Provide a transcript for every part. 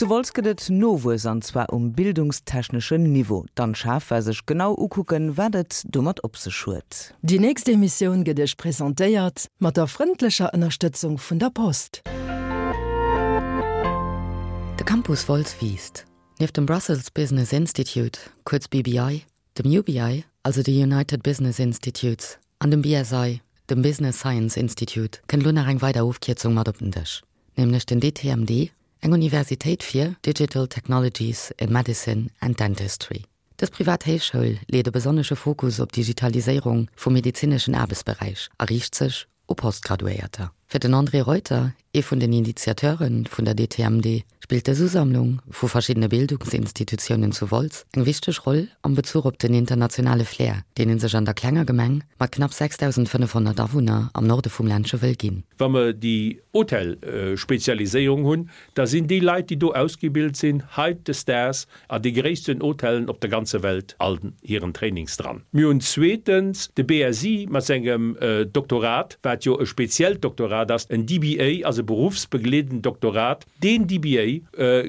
Zu Wolz gëtt et Nowuess an zwar um bildungstechneschen Niveau. D'Anne Schaaf war sech genau ukucken, wat et domat op sech huet. Déi nächst Emissioun gëtt Iech presentéiert mat der frëndlecher Ënnerstëtzung vun der Post. De Campus Wolz wiisst. Nieft dem Brussels Business Institute, kuerz BBI, dem UBI, also de United Business Institutes, an dem BSI, dem Business Science Institute, kënnt elo nach eng weider Ofkierzung mat op den Dësch, nämlech den DTMD, eng Universitéit fir Digital Technologies in Medicine and Dentistry. Dës privat Héichschoul leet e besonnesche Fokus op d'Digitaliséierung vum medezineschen Aarbechtsberäich a riicht sech u Postgraduéierter. Fir den André Reuter, ee vun den Initiateure vun der DTMD, spillt dës Usammlung vu verschiddene Bildungsinstitutiounen zu Wolz eng wichteg Roll am Bezuch op den internationale Flair, deen ee sech an der klenger Gemeng mat knapp 6.500 Awunner am Norde vum Ländche wëll ginn. Wa mer déi Hotelspezialiséierung hunn, da sinn déi Leit, déi do ausgebilt sinn, hautdesdaags an de gréissten Hotellen op der ganzer Welt an hiren Trainings dran. Mir hunn zweetens de BSI mat sengem Doktorat, wat jo e speziellt Doktorat ass, en DBA ass e beruffsbegleedend Doktorat. Deen DBA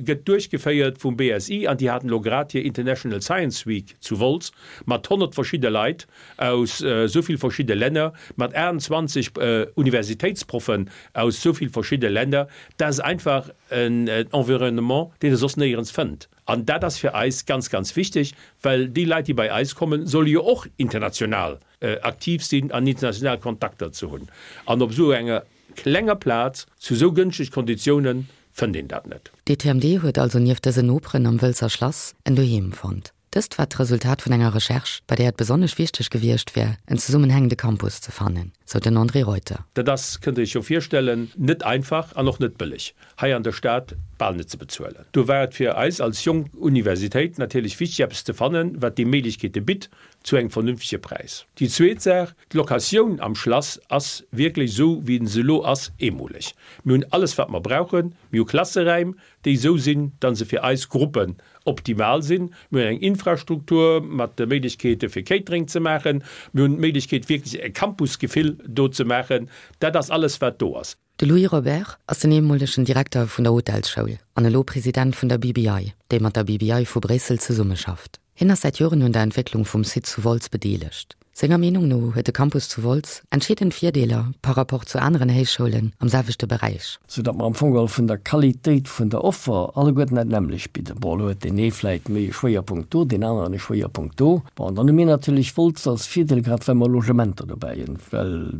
gëtt duerchgeféiert vum BSI an déi haten elo grad hir International Science Week zu Wolz mat 100 verschidde Leit aus esou vill verschidde Länner, mat 28 Universitéitsproffen aus esou vill verschidde Länner. Dat ass einfach en Environnement, deen e soss néierens fënnt. An dat ass fir eis ganz, ganz wichteg, well déi Leit, déi bei eis kommen, solle jo och international aktiv sinn an international Kontakter ze hunn. An op esou enger klenger Plaz, zu esou gënschteg Konditiounen, fënnt een dat net. D'ETMD huet also nieft dësen Noperen am Wëlzer Schlass en Doheem fonnt. Dëst war d'Resultat vun enger Recherche, bei där et besonnesch wichteg gewiescht wär, en zesummenhängende Campus ze fannen, sou den André Reuter. Dat ass, kënnt Der Iech jo virstellen, net einfach an och net bëlleg, hei an der Stad bal net ze bezuelen. Do war et fir eis als jonk Universitéit natierlech wichteg, eppes ze fannen, wat déi Méiglechkeete bitt, zu engem vernünftege Präis. Déi zweet Saach, D'Locatioun am Schlass ass wierklech, esou wéi se elo ass, eemoleg. Mir hunn alles, wat mer brauchen. Mir hu Klasseräim, déi esou sinn, datt se fir eis Gruppen optimal sinn. Mir hunn eng Infrastruktur mat de Méiglechkeete fir Catering ze maachen. Mir hunn d'Méiglechkeet wierklech e Campusgefill do ze maachen. Dat ass alles wat do ass. De Louis Robert ass den eemolegen Direkter vun der Hotelsschoul an elo President vun der BBI, déi mat der BBI vu Bréissel zesummeschafft. Hien ass säit Joren un der Entwécklung vum Site zu Wolz bedeelegt. Senger Meenung no huet de Campus zu Wolz entscheedend Virdeeler par rapport zu aneren Héichschoulen am selwechte Beräich. Sou datt mer am Fong geholl vun der Qualitéit vun der Offer alleguerten dat nämmlecht bidden. Bon, elo huet deen ee vläicht méi e Schwéierpunkt do, deen aneren e Schwéierpunkt do. Bon, an dann hu mir natierlech Wolz als Virdeel, grad well mer Logementer dobäi hunn, well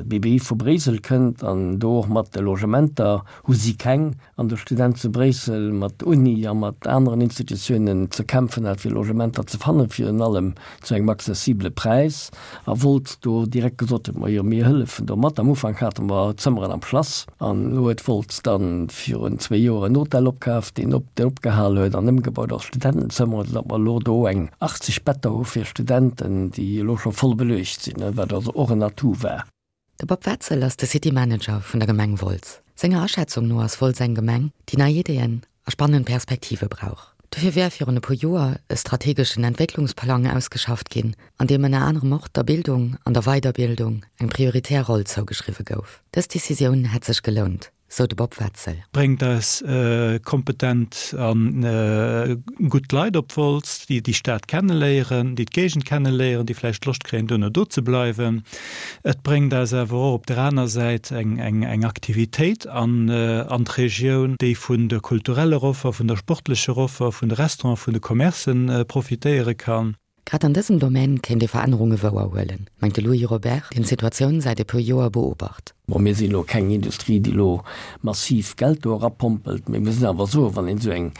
BBI vu Bréissel kënnt an do och mat de Logementer hu si keng. An de Student zu Bréissel mat Uni a mat aneren Institutiounen ze kämpfen hat, fir Logementer ze fannen, virun allem zu engem accessibele Präis, a wollt do direkt gesot huet, Majo, mir hëllefen do mat. Am Ufank hate mer Zëmmeren am Schlass, an elo huet Wolz dann virun zwéi Joer en Hotel opkaf, deen op, deen opgehal huet an ëmgebaut als Studentenzëmmeren, soudatt mer elo do eng 80 Better hu fir Studenten, déi elo scho voll beluecht sinn, wat also och en Atout war. De Bob Wetzel ass de City Manager vun der Gemeng Wolz. Senger Aschätzung no ass Wolz eng Gemeng, déi nei Ideeën a spannend Perspektive brauch. Dofir wär virun e puer Joer e strategeschen Entwécklungsplang ausgeschafft ginn, an deem ënner anerem och der Bildung an der Weiderbildung eng prioritär Roll zougeschriwwe gouf. Dës Decisioun hätt sech gelount. sou de Bob Wetzel. Bréngt eis kompetent a gutt Leit op Wolz, déi déi Stad kenneléieren, déi d'Géigend kenneléieren, déi vläicht Loscht kréien, duerno do ze bleiwen. Et bréngt eis awer och op der aner Säit eng Aktivitéit an d'Regioun, déi vun der kultureller Offer, vun der sportlecher Offer, vun de Restauranten, vun de Commercen profitéiere kann. Grad an dësem Domaine kéint ee Verännerunge wouer huelen, mengt de Louis Robert, deen d'Situatioun säit e puer Joer beobacht. Bon, mir sinn elo keng Industrie, déi elo massiv Geld do erapompelt, mee mir sinn awer soen, wann een esou eng,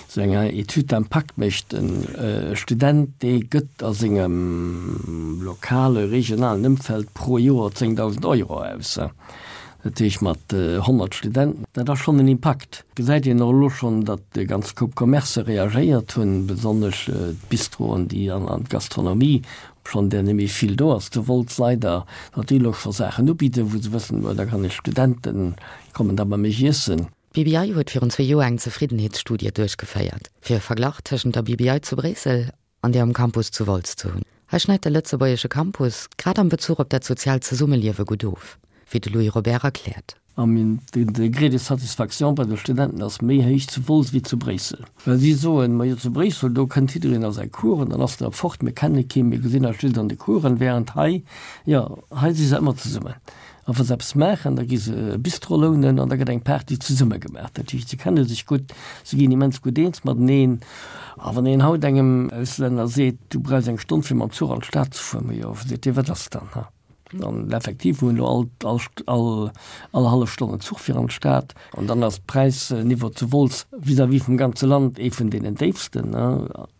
esou eng Étude d'impact mécht, e Student, dee gëtt a sengem lokale, regionalen Ëmfeld pro Joer 10.000 Euro aus. Dat heescht mat 100 Studenten, dat ass schonn en Impakt. Gesäit een och elo schonn, datt e ganz Koup Commercë reagéiert hunn, besonnesch d'Bistroen, déi an d'Gastronomie, obschonn där net méi vill do ass zu Wolz leider, datt déi elo scho Saachen ubidden, wou se wëssen, oh da kann ech Studenten kommen da bei mech iessen. D'BBI huet virun zwee Joer eng Zefriddenheetsstudie duerchgeféiert, fir e Verglach tëschent der BBI zu Bréissel an där um Campus zu Wolz ze hunn. Hei schneit de lëtzebuergesche Campus grad am Bezuch op dat soziaalt Zesummeliewe gutt of, wéi de Louis Robert erkläert. An den Degré de satisfaction bei de Studenten ass méi héich zu Wolz wéi zu Bréissel. Well si soen, majo zu Bréissel, do kënnt jiddereen a säi Cours an dann ass en da fort, mir kenne keen, mir gesinn eis just an de Coursen, während hei, jo, hei si se ëmmer zesummen. A wa se eppes maachen, da gi se e Bistro lounen an da gëtt eng Party zesumme gemaach. Dat heescht, se kenne sech gutt, se ginn immens gutt eens mateneen. A wann een haut engem Auslänner seet, du brauchs eng Stonn fir mam Zuch an d'Stad ze fueren, majo, seet dee, wat ass dann, ha? An effektiv, mir hunn elo all, all, all, all hallef Stonn en Zuch fir an d'Stad. An dann ass d'Präisniveau zu Wolz vis-à-vis vum ganze Land ee vun deenen déifsten,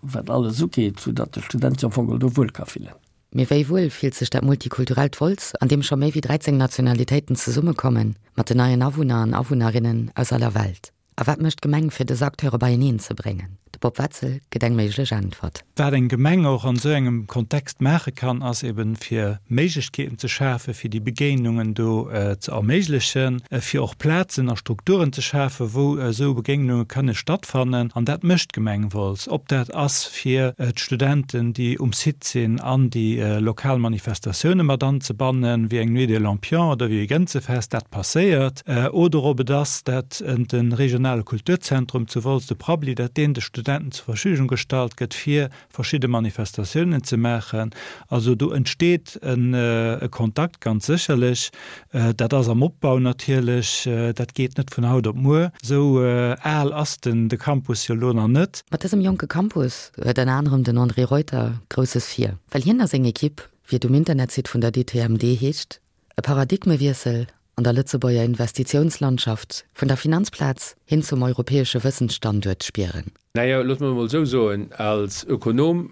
wat alles ugeet, soudatt de Student sech am Fong do wuel ka fillen. Mee wéi wuel fillt sech dat multikulturellt Wolz, an deem scho méi wéi 13 Nationalitéiten zesummekommen, mat den neien Awunner an Awunnerinnen aus aller Welt? A wat mécht d'Gemeng fir dës Acteure beieneen ze bréngen? De Bob Wetzel gëtt eng méiglech Äntwert. Wat eng Gemeng och an esou engem Kontext maache kann, ass eben fir Méiglechkeeten ze schafen, fir déi Begéinungen do ze erméiglechen, fir och Plazen a Strukturen ze schafen, wou esou Begéinunge kënne stattfannen. An dat mécht d'Gemeng Wolz. Ob dat ass fir d'Studenten, déi um Site sinn, an déi lokal Manifestatioune mat anzebannen, wéi eng Nuit des Lampions oder wéi e Gënzefest, dat passéiert, oder ob et ass, dat de regionale Kulturzentrum zu Wolz, de Prabbeli, dat deen de Studenten zur Verfügung gestallt gëtt, fir verschidde Manifestatiounen ze maachen. Also do entsteet e Kontakt, ganz sécherlech. Dat ass am Opbau natierlech, dat geet net vun haut op muer. Esou al ass den de Campus jo elo nach net. Mat dësem jonke Campus huet ënner anerem den André Reuter Grousses vir, well hien a seng Ekipp, wéi et um Internetsite vun der DTMD heescht, e Paradigmewiessel an der Lëtzebuerger Investitiounslandschaft vun der Finanzplaz hin zum europäesche Wëssensstanduert spieren. Naja, loosse mer emol esou soen, als Ökonom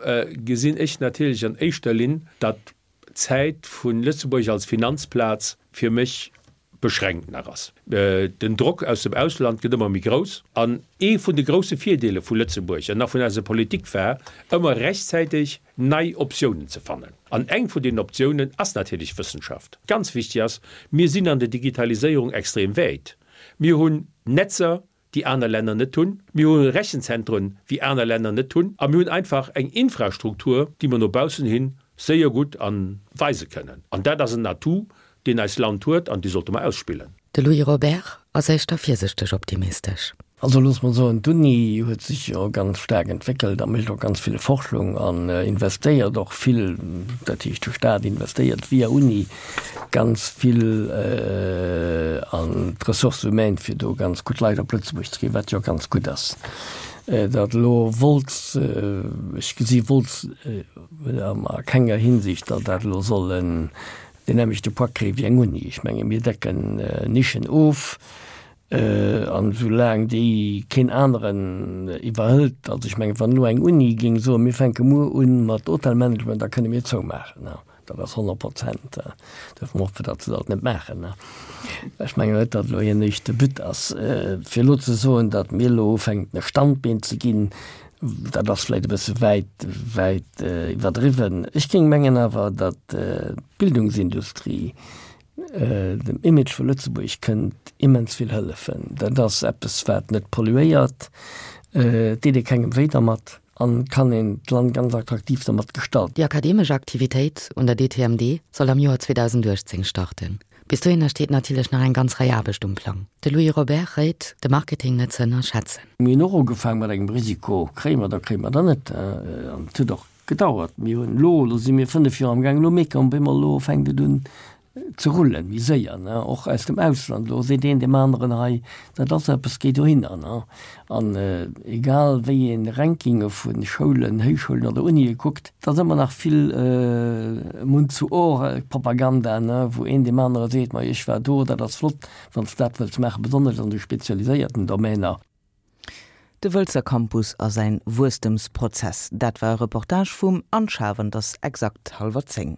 gesinn ech natierlech an éischter Linn, datt d'Zäit vu Lëtzebuerg als Finanzplaz fir mech beschränkt nach ass. Den Drock aus dem Ausland gëtt ëmmer méi grouss. An ee vun de grousse Virdeele vu Lëtzebuerg an nach vun eiser Politik war, ëmmer rechtzäiteg nei Optiounen ze fannen. An eng vun deenen Optiounen ass natierlech Wëssenschaft. Ganz wichteg ass, mir sinn an der Digitaliséierung extrem wäit. Mir hunn Netzer, déi aner Länner net hunn. Mir hu Rechenzentren, wéi aner Länner net hunn. A mir hunn einfach eng Infrastruktur, déi mer no baussen hi séier gutt a weise kënnen. An dat ass en Atout, deen eist Land huet an dee sollte mer ausspillen. De Louis Robert ass éischter virsichteg optimistesch. Also loosse mer soen, d'Uni huet sech jo ganz staark entwéckelt a mécht och ganz vill Forschung an investéiert och vill, dat heescht de Staat investéiert via Uni ganz vill an d'Ressources humaines, fir do ganz gutt Leit op Lëtzebuerg ze kréien, wat jo ganz gutt ass. Datt elo Wolz, ech gesi Wolz a kenger Hinsicht, datt dat elo soll en deen nämmlechte Poids kréie wéi eng Uni. Ech menge mir decken Nischen of. An esou laang déi keen aneren iwwerhëlt, also ech mengen, wann elo eng Uni géing soen, mir fänke muer u mat Hotelmanagement, da kënne mir zoumaachen, dat ass 100 Prozent. Duerfir hoffe mer, datt se dat net maachen. Ech mengen net, datt elo hiren éischte But ass, fir elo ze soen, datt mir elo ufänken e Standbeen ze ginn, dat ass vläicht e bësse wäit, wäit iwwerdriwwen. Ech géing mengen awer, datt d'Bildungsindustrie, Dem Image vu Lëtzebuerg kënnt immens vill hëllefen. Dat ass eppes, wat net polluéiert, et deet ee kengem wéi dermat an kann een d'Land ganz attraktiv dermat gestalten. Déi akademesch Aktivitéit un der DTMD soll am Joer 2018 starten. Bis dohinner steet natierlech nach eng ganz Rei Aarbecht um Plang. De Louis Robert réit, de Marketing net ze ënnerschätzen. Mir hunn och ugefaang mat engem Risiko, kréie mer der, kréie mer der net. An et huet och Gedauert. Mir hunn elo, elo si mir 5 Joer am Gaang, elo mierke mer op eemol, elo fänkt et un ze rullen, méi séier, ne, och aus dem Ausland. Elo seet een deem aneren, hei, dat ass eppes, géi dohinner, ne. An egal wéi ee Rankinge vu Schoulen, Héichschoulen oder Unie kuckt, et ass ëmmer nach vill Mund-zu-Ohr-Propaganda, ne, wou een deem anere seet, ma ech war do, dat ass flott, wann s de dat wëlls maachen, besonnesch an de spezialiséierten Domäner. De Wëlzer Campus a säin Wuesstemsprozess, dat war e Reportage vum Anne Schaaf an et ass exakt hallwer 10.